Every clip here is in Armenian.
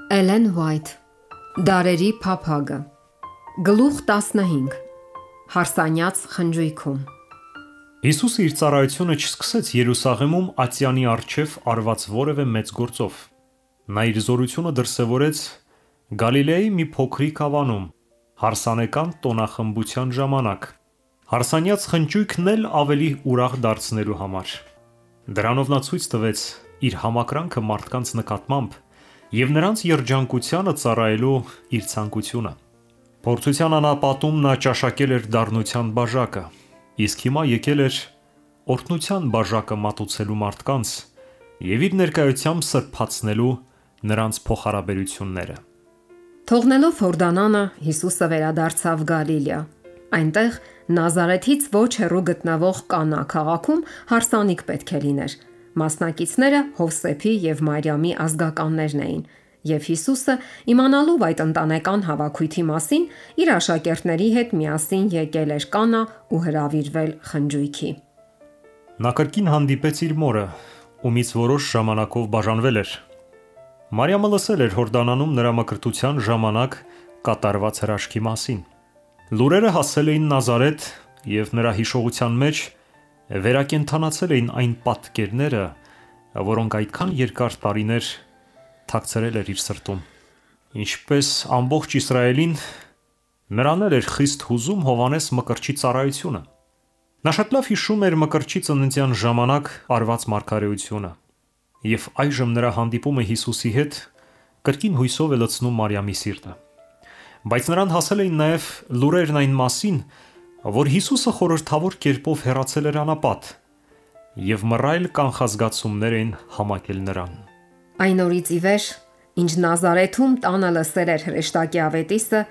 Էլեն Ուայթ Դարերի փափագը Գլուխ 15 Հարսանյաց խնջույքում Հիսուսը իր ծառայությունը չսկսեց Երուսաղեմում Ատյանի առջև արված որևէ մեծ գործով։ Նա իր զորությունը դրսևորեց Գալիլեայի մի փոքրիկ ավանում, հարսանեկան տոնախմբության ժամանակ, հարսանյաց խնջույքն էլ ավելի ուրախ դարձնելու համար։ Դրանով նա ցույց տվեց իր համակրանքը մարդկանց նկատմամբ և նրանց երջանկությանը ծառայելու իր ցանկությունը։ Փորձության անապատում նա ճաշակել էր դառնության բաժակը, իսկ հիմա եկել էր օրհնության բաժակը մատուցելու մարդկանց և իր ներկայությամբ սրբացնելու նրանց փոխհարաբերությունները։ Թողնելով Հորդանանը, Հիսուսը վերադարձավ Գալիլեա։ Այնտեղ Նազարեթից ոչ հեռու գտնվող Կանա քաղաքում հարսանիք պետք է լիներ։ Մասնակիցները Հովսեփի և Մարիամի ազգականներն էին, և Հիսուսը, իմանալով այդ ընտանեկան հավաքույթի մասին, իր աշակերտների հետ միասին եկել էր Կանա ու հրավիրվել խնջույքի։ Նա կրկին հանդիպեց իր մորը, ումից որոշ ժամանակով բաժանվել էր։ Մարիամը լսել էր Հորդանանում նրա մկրտության ժամանակ կատարված հրաշքի մասին։ Լուրերը հասել էին Նազարեթ և նրա հիշողության մեջ վերակենդանացել էին այն պատկերները, որոնք այդքան երկար տարիներ թաքցրել էր իր սրտում։ Ինչպես ամբողջ Իսրայելին, նրան էր խիստ հուզում Հովհաննես Մկրտչի ծառայությունը։ Նա շատ լավ հիշում էր Մկրտչի ծննդյան ժամանակ արված մարգարեությունը, և այժմ նրա հանդիպումը Հիսուսի հետ կրկին հույսով է լցնում Մարիամի սիրտը։ Բայց նրան հասել էին նաև լուրերն այն մասին, որ Հիսուսը խորհրդավոր կերպով հեռացել էր անապատ, և մռայլ կանխազգացումներ էին համակել նրան։ Այն օրից ի վեր, ինչ Նազարեթում տանը լսել էր հրեշտակի ավետիսը,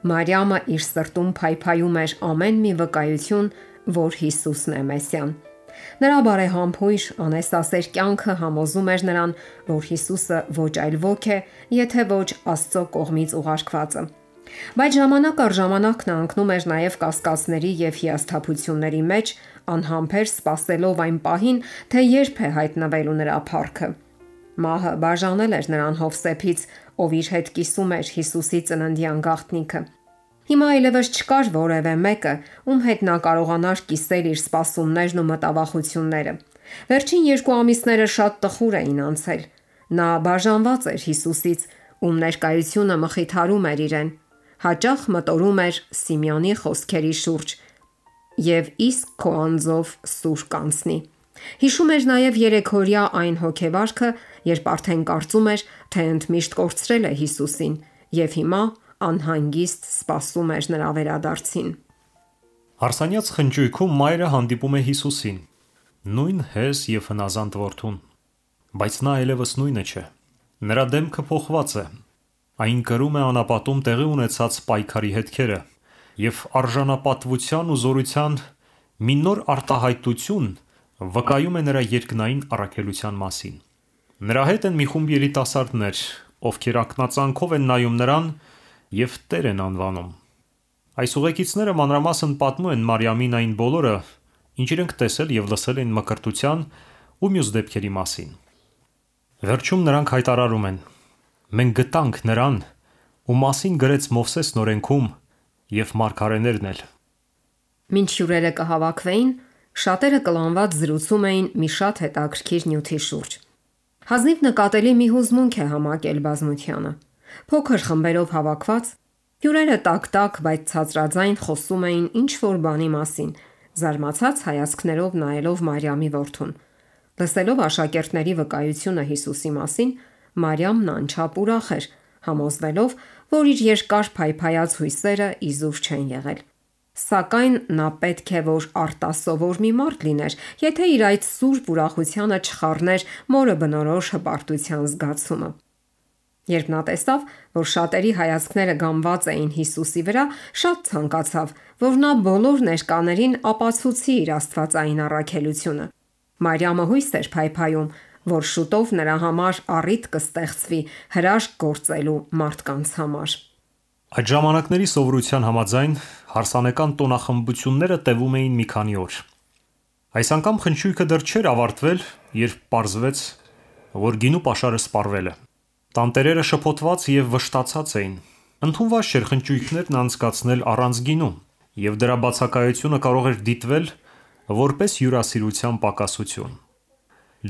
Մարիամը իր սրտում փայփայում էր ամեն մի վկայություն, որ Հիսուսն է Մեսիան։ Նրա բարեհամբույր, անհեսասեր կյանքը համոզում էր նրան, որ Հիսուսը ոչ այլ ոք է, եթե ոչ Աստծո կողմից ուղարկվածը։ Բայց ժամանակ առ ժամանակ նա ընկնում էր նաև կասկածների և հիասթափությունների մեջ, անհամբեր սպասելով այն պահին, թե երբ է հայտնվելու նրա փառքը։ Մահը բաժանել էր նրան Հովսեփից, ով իր հետ կիսում էր Հիսուսի ծննդյան գաղտնիքը։ Հիմա այլևս չկար որևէ մեկը, ում հետ նա կարողանար կիսել իր սպասումներն ու մտավախությունները։ Վերջին 2 ամիսները շատ տխուր էին անցել։ Նա բաժանված էր Հիսուսից, ում ներկայությունը մխիթարում էր իրեն։ Հաճախ մտորում էր Սիմեոնի խոսքերի շուրջ. «Եվ իսկ քո անձով սուր կանցնի»։ Հիշում էր նաև երեքօրյա այն հոգեվարքը, երբ արդեն կարծում էր, թե ընդմիշտ կորցրել է Հիսուսին, և հիմա անհանգիստ սպասում էր նրա վերադարձին։ Հարսանյաց խնջույքում մայրը հանդիպում է Հիսուսին, նույն հես և հնազանդ որդուն, բայց նա այլևս նույնը չէ։ Նրա դեմքը փոխված է։ Այն կրում է անապատում տեղի ունեցած պայքարի հետքերը, և արժանապատվության ու զորության մի նոր արտահայտություն վկայում է նրա երկնային առաքելության մասին։ Նրա հետ են մի խումբ երիտասարդներ, ովքեր ակնածանքով են նայում նրան և Տեր են անվանում։ Այս ուղեկիցները մանրամասն պատմում են Մարիամին այն բոլորը, ինչ իրենք տեսել և լսել են մկրտության ու մյուս դեպքերի մասին։ Վերջում նրանք հայտարարում են. «Մենք գտանք նրան, ում մասին գրեց Մովսեսն օրենքում և մարգարեներն էլ»։ Մինչ հյուրերը կհավաքվեին, շատերը կլանված զրուցում էին մի շատ հետաքրքիր նյութի շուրջ։ Հազիվ նկատելի մի հուզմունք է համակել բազմությանը։ Փոքր խմբերով հավաքված, հյուրերը տակ-տակ, բայց ցածրաձայն խոսում էին ինչ-որ բանի մասին, զարմացած հայացքներով նայելով Մարիամի որդուն։ Լսելով աշակերտների վկայությունը Հիսուսի մասին, Մարիամն անչափ ուրախ էր, համոզվելով, որ իր երկար փայփայած հույսերը իզուր չեն եղել։ Սակայն նա պետք է որ արտասովոր մի մարդ լիներ, եթե իր այդ սուրբ ուրախությանը չխառներ մորը բնորոշ հպարտության զգացումը։ Երբ նա տեսավ, որ շատերի հայացքները գամված էին Հիսուսի վրա, շատ ցանկացավ, որ նա բոլոր ներկաներին ապացուցի իր աստվածային առաքելությունը։ Մարիամը հույս էր փայփայում, որ շուտով նրա համար առիթ կստեղծվի հրաշք գործելու մարդկանց համար։ Այդ ժամանակների սովորության համաձայն հարսանեկան տոնախմբությունները տևում էին մի քանի օր։ Այս անգամ խնջույքը դեռ չէր ավարտվել, երբ պարզվեց, որ գինու պաշարը սպառվել է։ Տանտերերը շփոթված եւ վշտացած էին։ Ընդունված չէր խնճույքներն անցկացնել առանց գինու, եւ դրա բացակայությունը կարող էր դիտվել որպես հյուրասիրության պակասություն։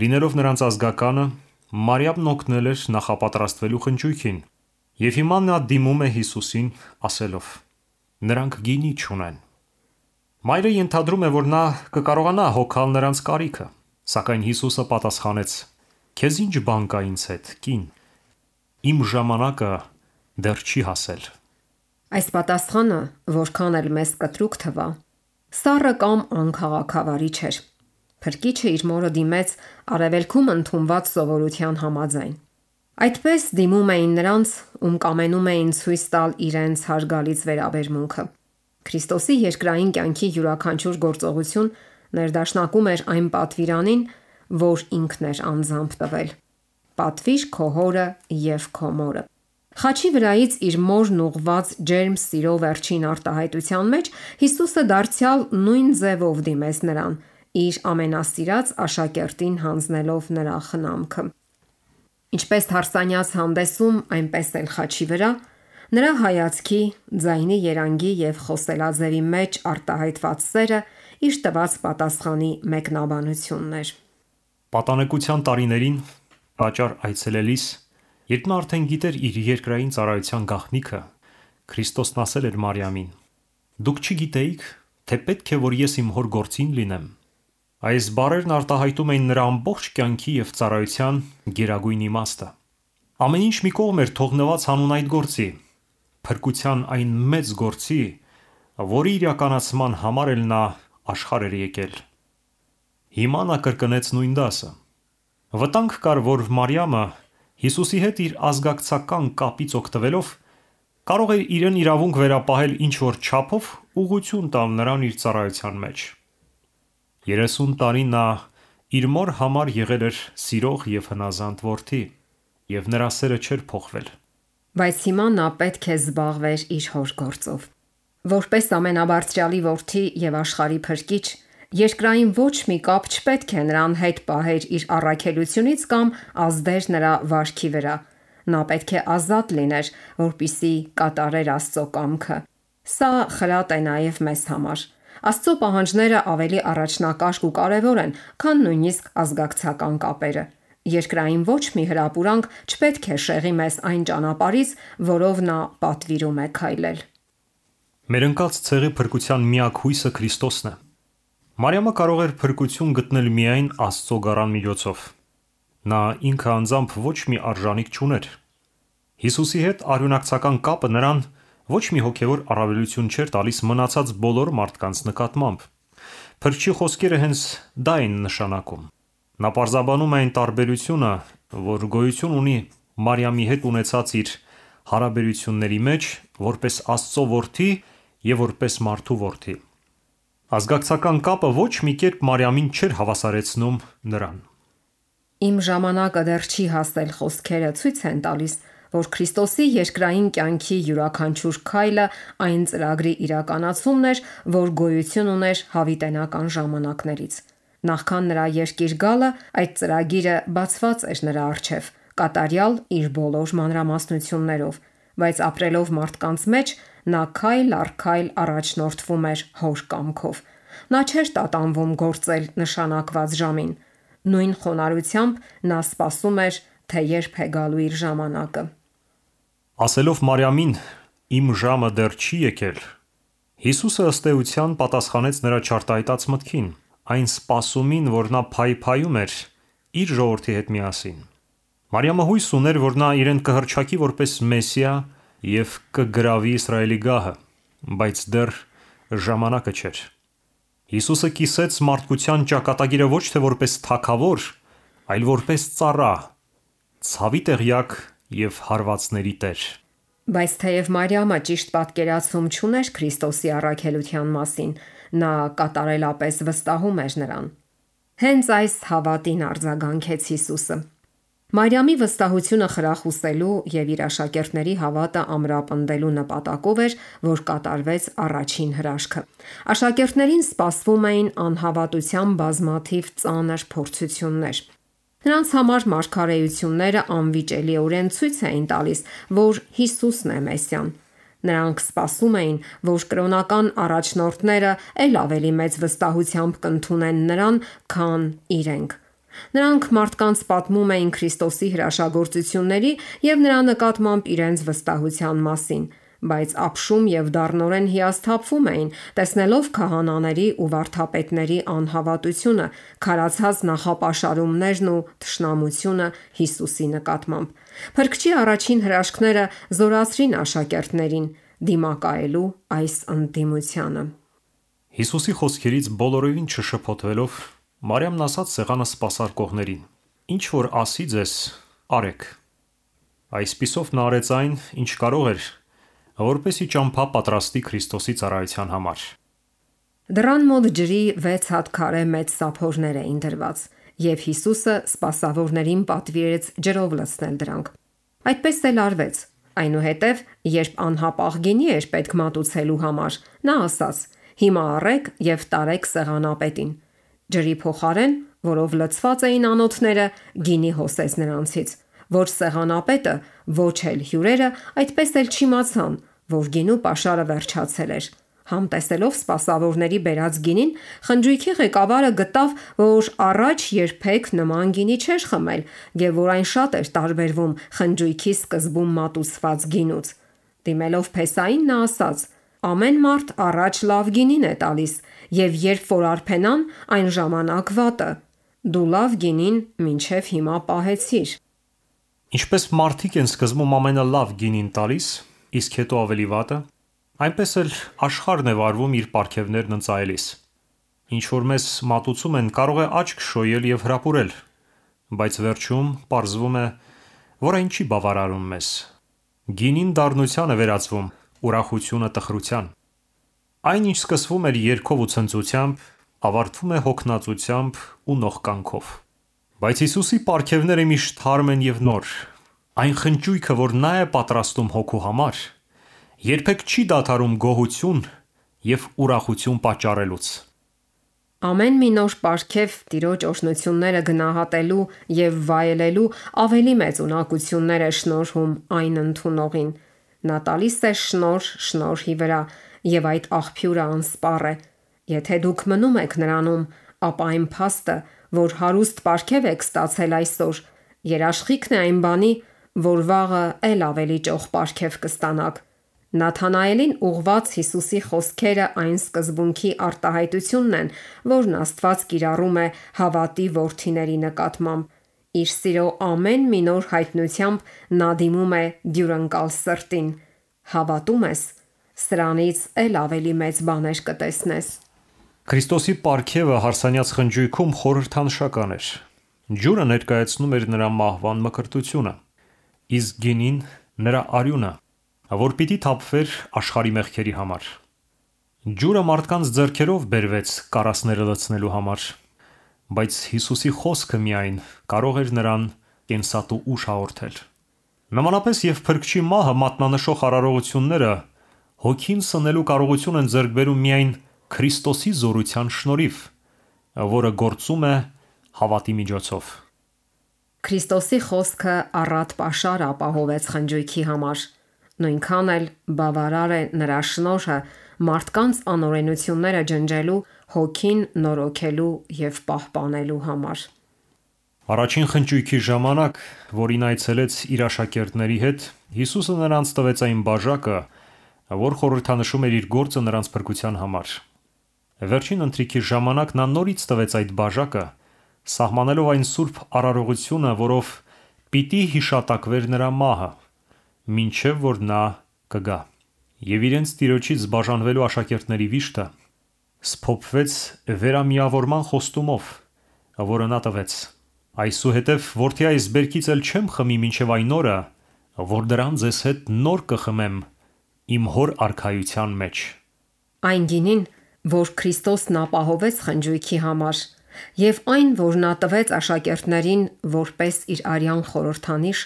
Լինելով նրանց ազգականը, Մարիամն օգնել էր նախապատրաստվելու խնճույքին, եւ հիմա նա դիմում է Հիսուսին ասելով. նրանք գինի չունեն։ Մայրը ենթադրում է, որ նա կկարողանա հոգալ նրանց կարիքը, սակայն Հիսուսը պատասխանեց. քեզ ինչ բան կա ինձ հետ, կին, իմ ժամանակը դեռ չի հասել։ Այս պատասխանը, որքան էլ մեզ կտրուկ թվա, սառը կամ անքաղաքավարի չէր։ Փրկիչը իր մորը դիմեց արևելքում ընդունված սովորության համաձայն։ Այդպես դիմում էին նրանց, ում կամենում էին ցույց տալ իրենց հարգալից վերաբերմունքը։ Քրիստոսի երկրային կյանքի յուրաքանչյուր գործողություն ներդաշնակում էր այն պատվիրանին, որ ինքն էր անձամբ տվել։ Պատվիր քո հորը եւ քո մորը։ Խաչի վրայից իր մորն ուղված ջերմ սիրո վերջին արտահայտության մեջ Հիսուսը դարձյալ նույն ձևով դիմեց նրան, իր ամենասիրած աշակերտին հանձնելով նրա խնամքը։ Ինչպես հարսանյաց հանդեսում, այնպես էլ խաչի վրա, նրա հայացքի, ձայնի երանգի եւ խոսելաձևի մեջ արտահայտված սերը իր տված պատասխանի մեկնաբանությունն էր։ Պատանեկության տարիներին տաճար այցելելիս, երբ նա արդեն գիտեր իր երկրային ծառայության գաղտնիքը, Քրիստոսն ասել էր Մարիամին. «Դուք չգիտեիք, թե պետք է որ ես իմ հոր գործին լինեմ»։ Այս բառերն արտահայտում էին նրա ամբողջ կյանքի եւ ծառայության գերագույն իմաստը։ Ամեն ինչ մի կողմ էր թողնված հանուն այդ գործի, փրկության այն մեծ գործի, որի իրականացման համար էլ նա աշխարհ էր եկել։ Հիմա նա կրկնեց նույն դասը։ Վտանգ կար, որ Մարիամը Հիսուսի հետ իր ազգակցական կապից օգտվելով կարող էր իրեն իրավունք վերապահել ինչ-որ չափով ուղղություն տալ նրան իր ծառայության մեջ։ 30 տարի նա իր մոր համար եղել էր սիրող եւ հնազանդ որդի, եւ նրա սերը չէր փոխվել։ Բայց հիմա նա պետք է զբաղվեր իր հոր գործով։ Որպես ամենաբարձրյալի որդի եւ աշխարհի փրկիչ, երկրային ոչ մի կապ չպետք է նրան հետ պահեր իր առաքելությունից կամ ազդեր նրա վարքի վրա։ Նա պետք է ազատ լիներ, որպիսի կատարեր Աստծո կամքը։ Սա խրատ է նաեւ մեզ համար։ Աստծո պահանջները ավելի առաջնակարգ ու կարևոր են, քան նույնիսկ ազգակցական կապերը։ Երկրային ոչ մի հրապուրանք չպետք է շեղի մեզ այն ճանապարհից, որով նա պատվիրում է քայլել։ Մեր ընկած ցեղի փրկության միակ հույսը Քրիստոսն է։ Մարիամը կարող էր փրկություն գտնել միայն Աստծո գառան միջոցով։ Նա ինքը անձամբ ոչ մի արժանիք չուներ։ Հիսուսի հետ արյունակցական կապը նրան ոչ մի հոգևոր առավելություն չէր տալիս մնացած բոլոր մարդկանց նկատմամբ։ Փրկչի խոսքերը հենց դա են նշանակում։ Նա պարզաբանում է այն տարբերությունը, որ գոյություն ունի Մարիամի հետ ունեցած իր հարաբերությունների մեջ, որպես Աստծո որդի եւ որպես մարդու որդի։ Ազգակցական կապը ոչ մի կերպ Մարիամին չէր հավասարեցնում նրան։ Իմ ժամանակը դեռ չի հասել խոսքերը ցույց են տալիս, որ Քրիստոսի երկրային կյանքի յուրաքանչյուր քայլը այն ծրագրի իրականացումն էր, որ գոյություն ուներ հավիտենական ժամանակներից։ Նախքան նրա երկիր գալը, այդ ծրագիրը բացված էր նրա առջև, կատարյալ իր բոլոր մանրամասնություններով, բայց ապրելով մարդկանց մեջ, նա քայլ առ քայլ առաջնորդվում էր հոր կամքով։ Նա չէր տատանվում գործել նշանակված ժամին։ Նույն խոնարհությամբ նա սպասում էր, թե երբ է գալու իր ժամանակը։ Ասելով Մարիամին, իմ ժամը դեռ չի եկել, Հիսուսը ըստ էության պատասխանեց նրա չարտահայտած մտքին, այն սպասումին, որ նա փայփայում էր իր ժողովրդի հետ միասին։ Մարիամը հույս ուներ, որ նա իրեն կհռչակի որպես Մեսիա եւ կգրավի Իսրայելի գահը, բայց դեռ ժամանակը չէր։ Հիսուսը կիսեց մարդկության ճակատագիրը ոչ թե որպես թագավոր, այլ որպես ծառա, ցավի տեղյակ եւ հարվածների տեր։ Բայց թեև Մարիամը ճիշտ պատկերացում չուներ Քրիստոսի առաքելության մասին, նա կատարելապես վստահում էր նրան։ Հենց այս հավատին արձագանքեց Հիսուսը։ Մարիամի վստահությունը խրախուսելու եւ իր աշակերտների հավատը ամրապնդելու նպատակով էր, որ կատարվեց առաջին հրաշքը։ Աշակերտներին սպասվում էին անհավատության բազմաթիվ ծանր փորձություններ։ Նրանց համար մարգարեությունները անվիճելիորեն ցույց էին տալիս, որ Հիսուսն է Մեսիան։ Նրանք սպասում էին, որ կրոնական առաջնորդները ել ավելի մեծ վստահությամբ կընդունեն նրան, քան իրենք։ Նրանք մարդկանց պատմում էին Քրիստոսի հրաշագործությունների եւ նրա նկատմամբ իրենց վստահության մասին, բայց ապշում եւ դառնորեն հիասթափվում էին, տեսնելով քահանաների ու վարդապետների անհավատությունը, քարացած նախապաշարումներն ու թշնամությունը Հիսուսի նկատմամբ։ Փրկչի առաջին հրաշքները զորացրին աշակերտներին դիմակայելու այս ընդդիմությանը։ Հիսուսի խոսքերից բոլորովին չշփոթվելով, Մարիամն ասաց սեղանը սպասարկողներին. «Ինչ որ ասի ձեզ, արեք»։ Այսպիսով նա արեց այն, ինչ կարող էր, որպեսզի ճամփա պատրաստի Քրիստոսի ծառայության համար։ Դռան մոտ ջրի 6 հատ քարե մեծ սափորներ էին դրված, եւ Հիսուսը սպասավորներին պատվիրեց ջրով լցնել դրանք։ Այդպես էլ արվեց։ Այնուհետև, երբ անհապաղ գինի էր պետք մատուցելու համար, նա ասաց. «Հիմա առեք եւ տարեք սեղանապետին»։ Ջրի փոխարեն, որով լցված էին անոթները, գինի հոսեց նրանցից, որ սեղանապետը, ոչ էլ հյուրերը, այդպես էլ չիմացան, որ գինու պաշարը վերջացել էր։ Համտեսելով սպասավորների բերած գինին, խնջույքի ղեկավարը գտավ, որ առաջ երբեք նման գինի չէր խմել եւ որ այն շատ էր տարբերվում խնջույքի սկզբում մատուցված գինուց։ Դիմելով փեսային, նա ասաց. «Ամեն մարդ առաջ լավ գինին է տալիս, եւ երբ որ արփենան, այն ժամանակ վատը։ Դու լավ գինին մինչև հիմա պահեցիր»։ Ինչպես մարդիկ են սկզբում ամենալավ գինին տալիս, իսկ հետո ավելի վատը, այնպես էլ աշխարհն է վարվում իր պարգևներն ընծայելիս։ Ինչ որ մեզ մատուցում են, կարող է աչք շոյել եւ հրապուրել, բայց վերջում պարզվում է, որ այն չի բավարարում մեզ։ Գինին դառնության է վերածվում, ուրախությունը տխրության։ Այն, ինչ սկսվում էր երգով ու ցնծությամբ, ավարտվում է հոգնածությամբ ու նողկանքով։ Բայց Հիսուսի պարգևները միշտ թարմ են եւ նոր։ Այն խնճույքը, որ նա է պատրաստում հոգու համար, երբեք չի դադարում գոհություն եւ ուրախություն պատճառելուց։ Ամեն մի նոր պարգև Տիրոջ օրհնությունները գնահատելու եւ վայելելու ավելի մեծ ունակություններ է շնորհում այն ընդունողին։ Նա տալիս է շնորհ շնորհի վրա, եւ այդ աղբյուրը անսպառ է։ Եթե դուք մնում եք նրանում, ապա այն փաստը, որ հարուստ պարգև եք ստացել այսօր, երաշխիքն է այն բանի, որ վաղը ել ավելի ճոխ պարգև կստանաք։ Նաթանայելին ուղված Հիսուսի խոսքերը այն սկզբունքի արտահայտությունն են, որն Աստված կիրառում է հավատի որդիների նկատմամբ։ Իր սիրո ամեն մի նոր հայտնությամբ նա դիմում է դյուրընկալ սրտին։ Հավատում ես, սրանից ել ավելի մեծ բաներ կտեսնես։ Քրիստոսի պարգևը հարսանյաց խնջույքում խորհրդանշական էր։ Ջուրը ներկայացնում էր նրա մահվան մկրտությունը, իսկ գինին նրա արյունը, որ պիտի թափվեր աշխարհի մեղքերի համար։ Ջուրը մարդկանց ձեռքերով բերվեց կարասները լցնելու համար, բայց Հիսուսի խոսքը միայն կարող էր նրան կենսատու ուժ հաղորդել։ Նմանապես եւ Փրկչի մահը մատնանշող արարողությունները հոգին սնելու կարողություն են ձեռք բերում միայն Քրիստոսի զորության շնորհիվ, որը գործում է հավատի միջոցով։ Քրիստոսի խոսքը առատ պաշար ապահովեց խնջույքի համար։ Նույնքան էլ բավարար է նրա շնորհը մարդկանց անօրենությունները ջնջելու, հոգին նորոգելու եւ պահպանելու համար։ Առաջին խնջույքի ժամանակ, որին այցելեց իր աշակերտների հետ, Հիսուսը նրանց տվեց այն բաժակը, որ խորհրդանշում էր իր գործը նրանց փրկության համար։ Վերջին ընթրիքի ժամանակ նա նորից տվեց այդ բաժակը, սահմանելով այն սուրբ արարողությունը, որով պիտի հիշատակվեր նրա մահը, մինչև որ նա կգա։ Եվ իրենց Տիրոջից բաժանվելու աշակերտների վիշտը սփոփվեց վերամիավորման խոստումով, որը նա տվեց. «Այսուհետև որդի այս բերքից էլ չեմ խմի մինչև այն օրը, որ դրան ձեզ հետ նոր կխմեմ իմ հոր արքայության մեջ»։ Այն գինին, որ Քրիստոսն ապահովեց խնջույքի համար, եւ այն, որ նա տվեց աշակերտներին որպես իր արյան խորհրդանիշ,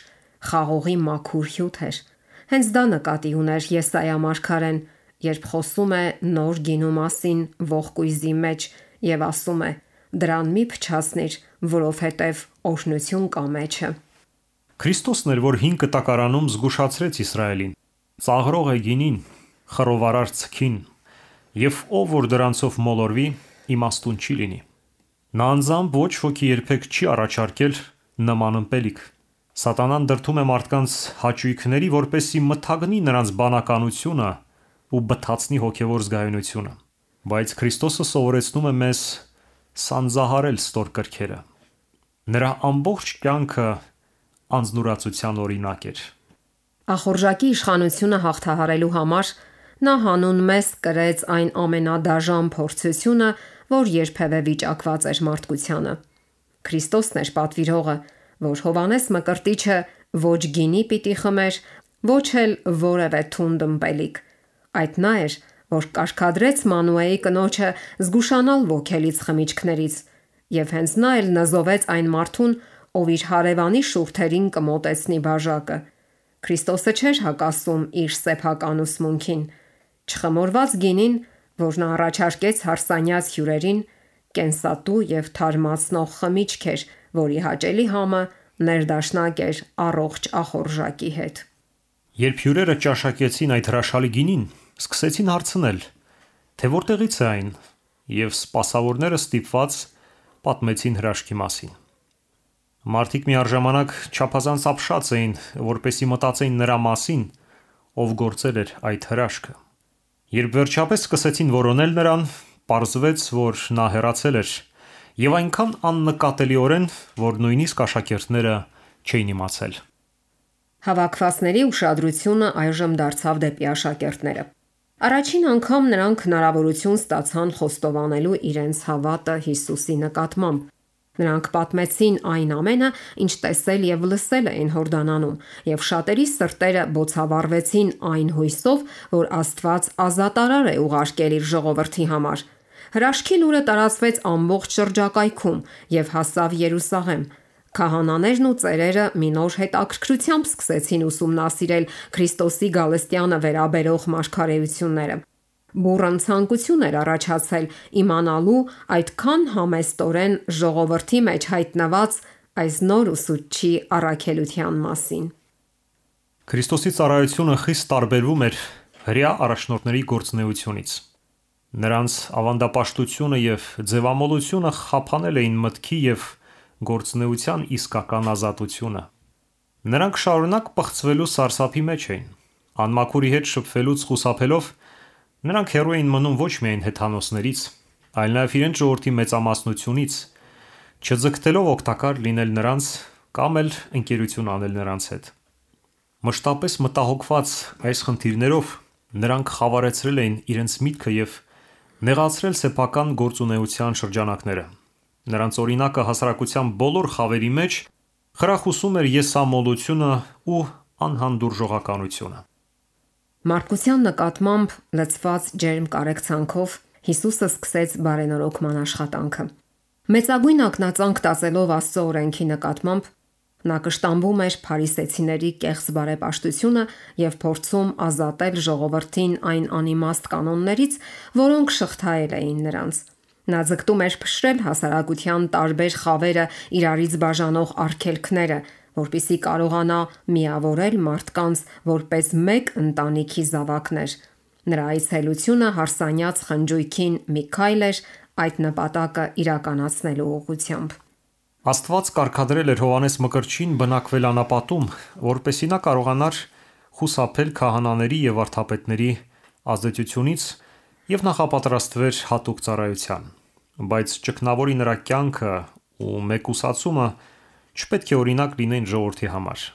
խաղողի մաքուր հյութ էր։ Հենց դա նկատի ուներ Եսայիա մարգարեն, երբ խոսում է նոր գինու մասին ողկույզի մեջ եւ ասում է. «Դրան մի փչացնիր, որովհետև օրհնություն կա մեջը։ Քրիստոսն էր, որ հին կտակարանում զգուշացրեց Իսրայելին. ծաղրող է գինին, խռովարար ցքին, եւ ով որ դրանցով մոլորվի, իմաստուն չի լինի։ Նա անձամբ ոչ ոքի երբեք չի առաջարկել նման ըմպելիք։ Սատանան դրդում է մարդկանց հաճույքների, որպեսզի մթագնի նրանց բանականությունը ու բթացնի հոգևոր զգայունությունը։ Բայց Քրիստոսը սովորեցնում է մեզ սանձահարել ստոր կրքերը։ Նրա ամբողջ կյանքը անձնուրացության օրինակ էր։ Ախորժակի իշխանությունը հաղթահարելու համար նա հանուն մեզ կրեց այն ամենադաժան փորձությունը, որ երբևէ վիճակված էր մարդկությանը։ Քրիստոսն էր պատվիրողը, որ Հովհաննես Մկրտիչը ոչ գինի պիտի խմեր, ոչ էլ որևէ թունդ ըմպելիք։ Այդ նա էր, որ կարգադրեց Մանուեի կնոջը զգուշանալ ոգելից խմիչքներից, եւ հենց նա էլ նզովեց այն մարդուն, ով իր հարևանի շուրթերին կմոտեցնի բաժակը։ Քրիստոսը չէր հակասում իր սեփական ուսմունքին։ Չխմորված գինին, որ նա առաջարկեց հարսանյաց հյուրերին, կենսատու եւ թարմացնող խմիչք էր, որի հաճելի համը ներդաշնակ էր առողջ ախորժակի հետ։ Երբ հյուրերը ճաշակեցին այդ հրաշալի գինին, սկսեցին հարցնել, թե որտեղից է այն, եւ սպասավորները ստիպված պատմեցին հրաշքի մասին։ Մարդիկ միառժամանակ չափազանց ապշած էին, որպեսզի մտածեին նրա մասին, ով գործել էր այդ հրաշքը։ Երբ վերջապես սկսեցին որոնել նրան, պարզվեց, որ նա հեռացել էր, եւ այնքան աննկատելիորեն, որ նույնիսկ աշակերտները չէին իմացել։ Հավաքվածների ուշադրությունը այժմ դարձավ դեպի աշակերտները։ Առաջին անգամ նրանք հնարավորություն ստացան խոստովանելու իրենց հավատը Հիսուսի նկատմամբ։ Նրանք պատմեցին այն ամենը, ինչ տեսել եւ լսել էին Հորդանանում, եւ շատերի սրտերը բոցավառվեցին այն հույսով, որ Աստված ազատարար է ուղարկել իր ժողովրդի համար։ Հրաշքի լուրը տարածվեց ամբողջ շրջակայքում եւ հասավ Երուսաղեմ։ Քահանաներն ու ծերերը մի նոր հետաքրքրությամբ սկսեցին ուսումնասիրել Քրիստոսի գալստյանը վերաբերող մարգարեությունները։ Բուրըն ցանկություն էր առաջացել իմանալու այդքան համեստորեն ժողովրդի մեջ հայտնված այս նոր ուսուցչի առաքելության մասին։ Քրիստոսի ծառայությունը խիստ տարբերվում էր հրեա առաջնորդների գործունեությունից։ Նրանց ավանդապաշտությունը եւ ձևամոլությունը խափանել էին մտքի եւ գործունեության իսկական ազատությունը։ Նրանք շարունակ պղծվելու սարսափի մեջ էին։ Անմաքուրի հետ շփվելուց խուսափելով նրանք հեռու էին մնում ոչ միայն հեթանոսներից, այլ նաև իրենց ժողովրդի մեծամասնությունից, չձգտելով օգտակար լինել նրանց կամ էլ ընկերություն անել նրանց հետ։ Մշտապես մտահոգված այս խնդիրներով նրանք խավարեցրել էին իրենց միտքը եւ նեղացրել սեփական գործունեության շրջանակները։ Նրանց օրինակը հասարակության բոլոր խավերի մեջ խրախուսում էր եսամոլությունը ու անհանդուրժողականությունը։ Մարդկության նկատմամբ լցված ջերմ կարեկցանքով Հիսուսը սկսեց բարենորոգման աշխատանքը։ Մեծագույն ակնածանք տածելով Աստծո օրենքի նկատմամբ նա կշտամբում էր փարիսեցիների կեղծ բարեպաշտությունը եւ փորձում ազատել ժողովրդին այն անիմաստ կանոններից, որոնք շղթայել էին նրանց։ Նա ձգտում էր փշրել հասարակության տարբեր խավերը իրարից բաժանող արգելքները, որպիսի կարողանա միավորել մարդկանց որպես մեկ ընտանիքի զավակներ։ Նրա այցելությունը հարսանյաց խնջույքին մի քայլ էր այդ նպատակը իրականացնելու ուղղությամբ։ Աստված կարգադրել էր Հովհաննես Մկրտչին բնակվել անապատում, որպեսզի նա կարողանար խուսափել քահանաների եւ վարդապետների ազդեցությունից եւ նախապատրաստվեր հատուկ ծառայության։ Բայց ճգնավորի նրա կյանքը ու մեկուսացումը չպետք է օրինակ լինեն ժողովրդի համար։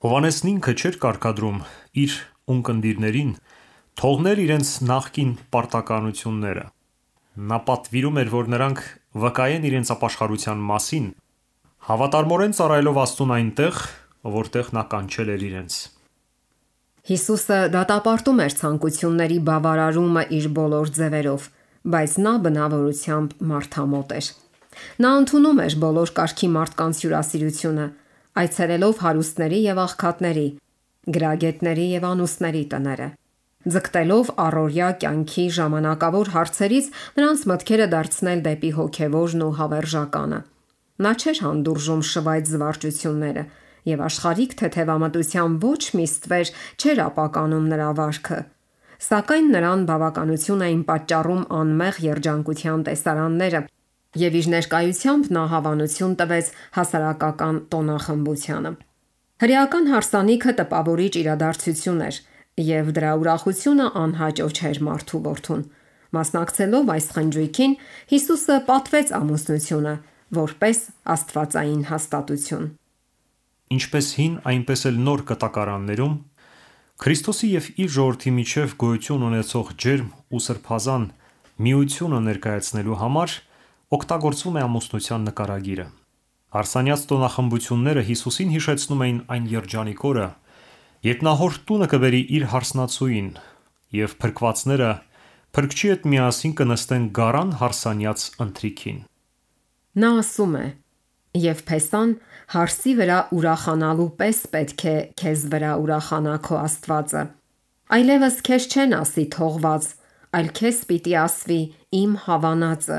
Հովհաննեսն ինքը չէր կարգադրում իր ունկնդիրներին թողնել իրենց նախկին պարտականությունները։ Նա պատվիրում էր, որ նրանք վկայեն իրենց ապաշխարության մասին, հավատարմորեն ծառայելով Աստծուն այնտեղ, որտեղ նա կանչել էր իրենց։ Հիսուսը դատապարտում էր ցանկությունների բավարարումը իր բոլոր ձևերով, բայց նա բնավորությամբ մարդամոտ էր։ Նա ընդունում էր բոլոր կարգի մարդկանց հյուրասիրությունը, այցելելով հարուստների եւ աղքատների, գրագետների եւ անուստների տները։ Ձգտելով առօրյա կյանքի ժամանակավոր հարցերից նրանց մտքերը դարձնել դեպի հոգևորն ու հավերժականը։ Նա չէր հանդուրժում շվայտ զվարճությունները եւ աշխարհիկ թեթևամտության ոչ մի ստվեր չէր ապականում նրա վարքը։ Սակայն նրան բավականություն էին պատճառում անմեղ երջանկության տեսարանները, եւ իր ներկայությամբ նա հավանություն տվեց հասարակական տոնախմբությանը։ Հրեական հարսանիքը տպավորիչ իրադարձություն էր, եւ դրա ուրախությունը անհաճո չէր մարդու որդուն։ Մասնակցելով այս խնջույքին, Հիսուսը պատվեց ամուսնությունը որպես աստվածային հաստատություն։ Ինչպես հին, այնպես էլ նոր կտակարաններում Քրիստոսի եւ իր ժողովրդի միջև գոյություն ունեցող ջերմ ու սրբազան միությունը ներկայացնելու համար օգտագործվում է ամուսնության նկարագիրը։ Հարսանյաց տոնախմբությունները Հիսուսին հիշեցնում էին այն երջանիկ օրը, երբ նա հոր տունը կբերի իր հարսնացուին, եւ փրկվածները փրկչի հետ միասին կնստեն գարան հարսանյաց ընթրիքին։ Նա ասում է. «Եվ Փեսան հարսի վրա ուրախանալու պես պետք է քեզ վրա ուրախանա քո Աստվածը։ Այլևս քեզ չեն ասի թողված, այլ քեզ պիտի ասվի իմ հավանածը,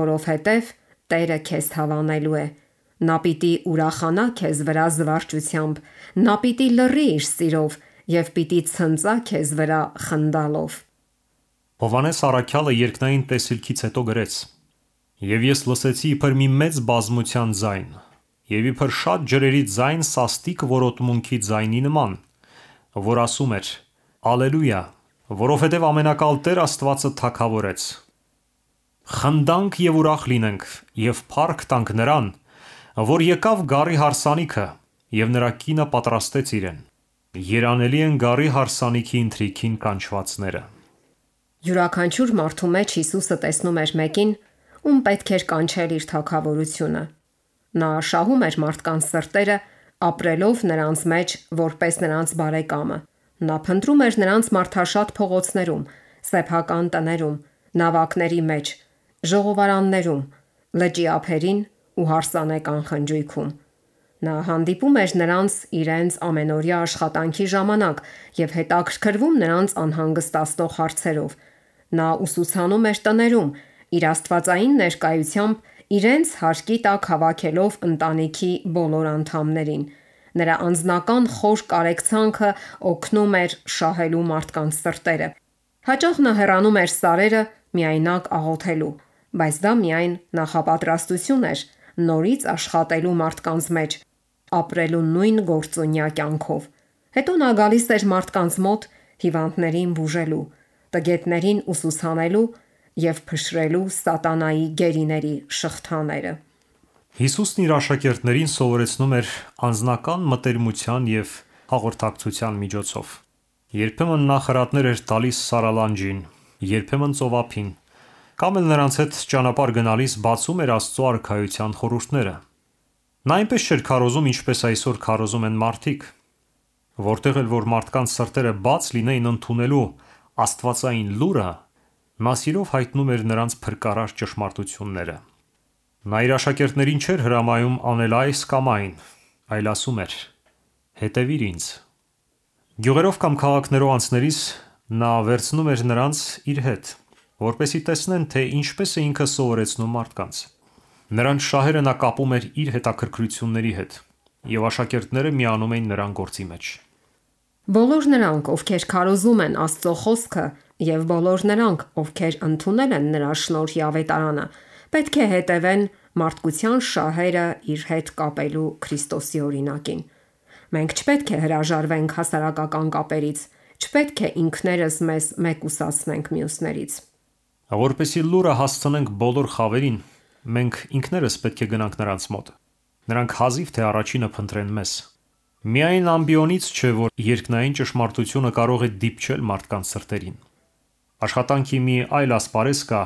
որովհետև Տերը քեզ հավանելու է։ Նա պիտի ուրախանա քեզ վրա զվարճությամբ, նա պիտի լռի իր սիրով եւ պիտի ցնծա քեզ վրա խնդալով»։ Հովհաննես առաքյալը երկնային տեսիլքից հետո գրեց. «Եվ ես լսեցի իբր մի մեծ բազմության ձայն, եւ իբր շատ ջրերի ձայն սաստիկ որոտմունքի ձայնի նման, որ ասում էր. Ալելույա, որովհետև ամենակալ Տեր Աստվածը թագավորեց։ Խնդանք եւ ուրախ լինենք եւ փառք տանք նրան, որ եկավ գառի հարսանիքը եւ նրա կինը պատրաստեց իրեն։ Երանելի են գառի հարսանիքի ընթրիքին կանչվածները»։ Յուրաքանչյուր մարդու մեջ Հիսուսը տեսնում էր մեկին, ում պետք էր կանչել իր թագավորությունը։ Նա շահում էր մարդկանց սրտերը, ապրելով նրանց մեջ որպես նրանց բարեկամը։ Նա փնտրում էր նրանց մարդաշատ փողոցներում, սեփական տներում, նավակների մեջ, ժողովարաններում, լճի ափերին ու հարսանեկան խնջույքում։ Նա հանդիպում էր նրանց իրենց ամենօրյա աշխատանքի ժամանակ եւ հետաքրքրվում նրանց անհանգստացնող հարցերով։ Նա ուսուցանում էր տներում, իր աստվածային ներկայությամբ իրենց հարկի տակ հավաքելով ընտանիքի բոլոր անդամներին։ Նրա անձնական խոր կարեկցանքը օգնում էր շահելու մարդկանց սրտերը։ Հաճախ նա հեռանում էր սարերը միայնակ աղոթելու, բայց դա միայն նախապատրաստություն էր նորից աշխատելու մարդկանց մեջ, ապրելու նույն գործունյա կյանքով։ Հետո նա գալիս էր մարդկանց մոտ հիվանդներին բուժելու, տգետներին ուսուցանելու եւ փշրելու սատանայի գերիների շղթաները։ Հիսուսն իր աշակերտներին սովորեցնում էր անձնական մտերմության եւ հաղորդակցության միջոցով։ Երբեմն նա խրատներ էր տալիս սարալանջին, երբեմն ծովափին, կամ էլ նրանց հետ ճանապարհ գնալիս բացում էր Աստծո արքայության խորհուրդները։ Նա այնպես չէր քարոզում, ինչպես այսօր քարոզում են մարդիկ, որտեղ էլ որ մարդկանց սրտերը բաց լինեին ընդունելու աստվածային լուրը, նա սիրով հայտնում էր նրանց փրկարար ճշմարտությունները։ Նա իր աշակերտներին չէր հրամայում անել այս կամ այն, այլ ասում էր. «Հետևիր ինձ»։ Գյուղերով կամ քաղաքներով անցնելիս նա վերցնում էր նրանց իր հետ, որպեսզի տեսնեն, թե ինչպես է ինքը սովորեցնում մարդկանց։ Նրանց շահերը նա կապում էր իր հետաքրքրությունների հետ, եւ աշակերտները միանում էին նրան գործի մեջ։ Բոլոր նրանք, ովքեր քարոզում են Աստծո խոսքը, եւ բոլոր նրանք, ովքեր ընդունել են նրա շնորհի ավետարանը, պետք է հետևեն մարդկության շահերը իր հետ կապելու Քրիստոսի օրինակին։ Մենք չպետք է հրաժարվենք հասարակական կապերից, չպետք է ինքներս մեզ մեկուսացնենք մյուսներից։ Որպեսզի լուրը հասցնենք բոլոր խավերին, մենք ինքներս պետք է գնանք նրանց մոտ։ Նրանք հազիվ թե առաջինը փնտրեն մեզ։ Միայն ամբիոնից չէ, որ երկնային ճշմարտությունը կարող է դիպչել մարդկանց սրտերին։ Աշխատանքի մի այլ ասպարեզ կա,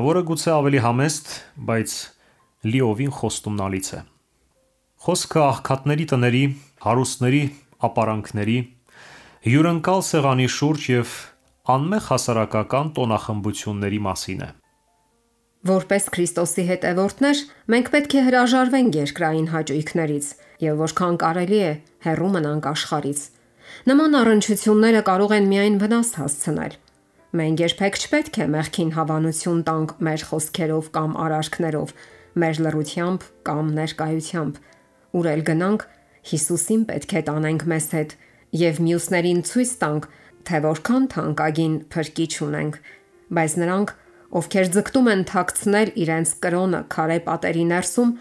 որը գուցե ավելի համեստ, բայց լիովին խոստումնալից է։ Խոսքը աղքատների տների, հարուստների ապարանքների, հյուրընկալ սեղանի շուրջ եւ անմեղ հասարակական տոնախմբությունների մասին է։ Որպես Քրիստոսի հետևորդներ, մենք պետք է հրաժարվենք երկրային հաճույքներից եւ որքան կարելի է հեռու մնանք աշխարհից։ Նման առնչությունները կարող են միայն վնաս հասցնել։ Մենք երբեք չպետք է մեղքին հավանություն տանք մեր խոսքերով կամ արարքներով։ մեր լռությամբ կամ ներկայությամբ։ Ուր էլ գնանք, Հիսուսին պետք է տանենք մեզ հետ եւ մյուսներին ցույց տանք, թե որքան թանկագին փրկիչ ունենք։ Բայց նրանք, ովքեր ձգտում են թաքցնել իրենց կրոնը քարե պատերի ներսում,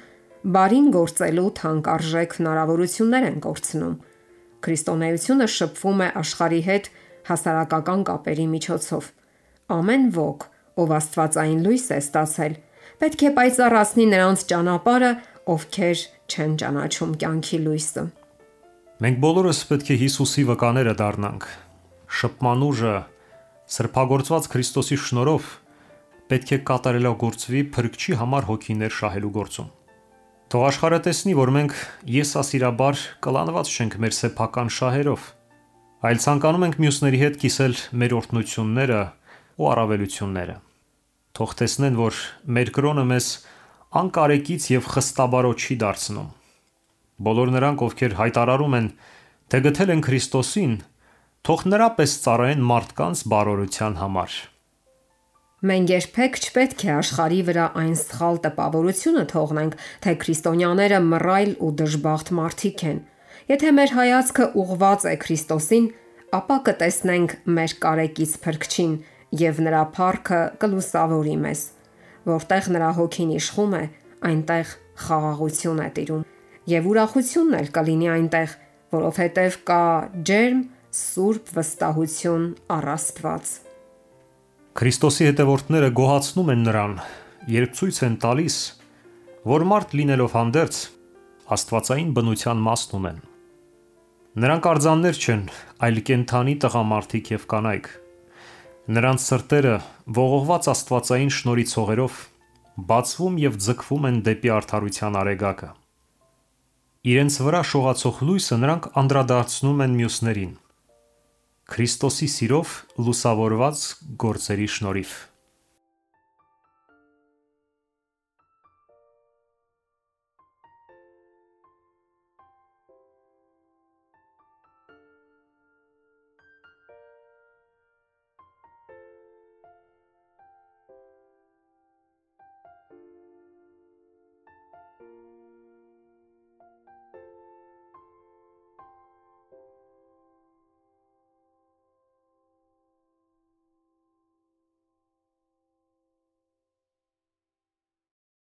բարին գործելու թանկարժեք հնարավորություններ են կորցնում։ Քրիստոնեությունը շփվում է աշխարհի հետ հասարակական կապերի միջոցով։ Ամեն ոք, ով աստվածային լույս է ստացել, պետք է պայծառացնի նրանց ճանապարհը, ովքեր չեն ճանաչում կյանքի լույսը։ Մենք բոլորս պետք է Հիսուսի վկաները դառնանք։ Շփման ուժը սրբագործված Քրիստոսի շնորհով պետք է կատարելագործվի Փրկչի համար հոգիներ շահելու գործում։ Թող աշխարհը տեսնի, որ մենք եսասիրաբար կլանված չենք մեր սեփական շահերով, այլ ցանկանում ենք մյուսների հետ կիսել մեր օրհնությունները ու առավելությունները։ Թող տեսնեն, որ մեր կրոնը մեզ անկարեկից եւ խստաբարոտ չի դարձնում։ Բոլոր նրանք, ովքեր հայտարարում են, թե գտել են Քրիստոսին, թող նրա պես ծառայեն մարդկանց բարօրության համար։ Մենք երբեք չպետք է աշխարհի վրա այն սխալ տպավորությունը թողնենք, թե քրիստոնյաները մռայլ ու դժբախտ մարդիկ են։ Եթե մեր հայացքը ուղղված է Քրիստոսին, ապա կտեսնենք մեր կարեկից Փրկչին եւ նրա փառքը կլուսավորի մեզ։ Որտեղ նրա հոգին իշխում է, այնտեղ խաղաղություն է տիրում եւ ուրախությունն էլ կլինի այնտեղ, որովհետեւ կա ջերմ սուրբ վստահություն առ Աստված։ Քրիստոսի հետևորդները գոհացնում են նրան, երբ ցույց են տալիս, որ մարդ լինելով հանդերձ աստվածային բնության մասն ունեն։ Նրանք արձաններ չեն, այլ կենդանի տղամարդիկ եւ կանայք։ Նրանց սրտերը ողողված աստվածային շնորհի ցողերով բացվում եւ ձգվում են դեպի արդարության արեգակը։ Իրենց վրա շողացող լույսը նրանք անդրադարձնում են մյուսներին։ Քրիստոսի սիրով լուսավորված գործերի շնորհիվ։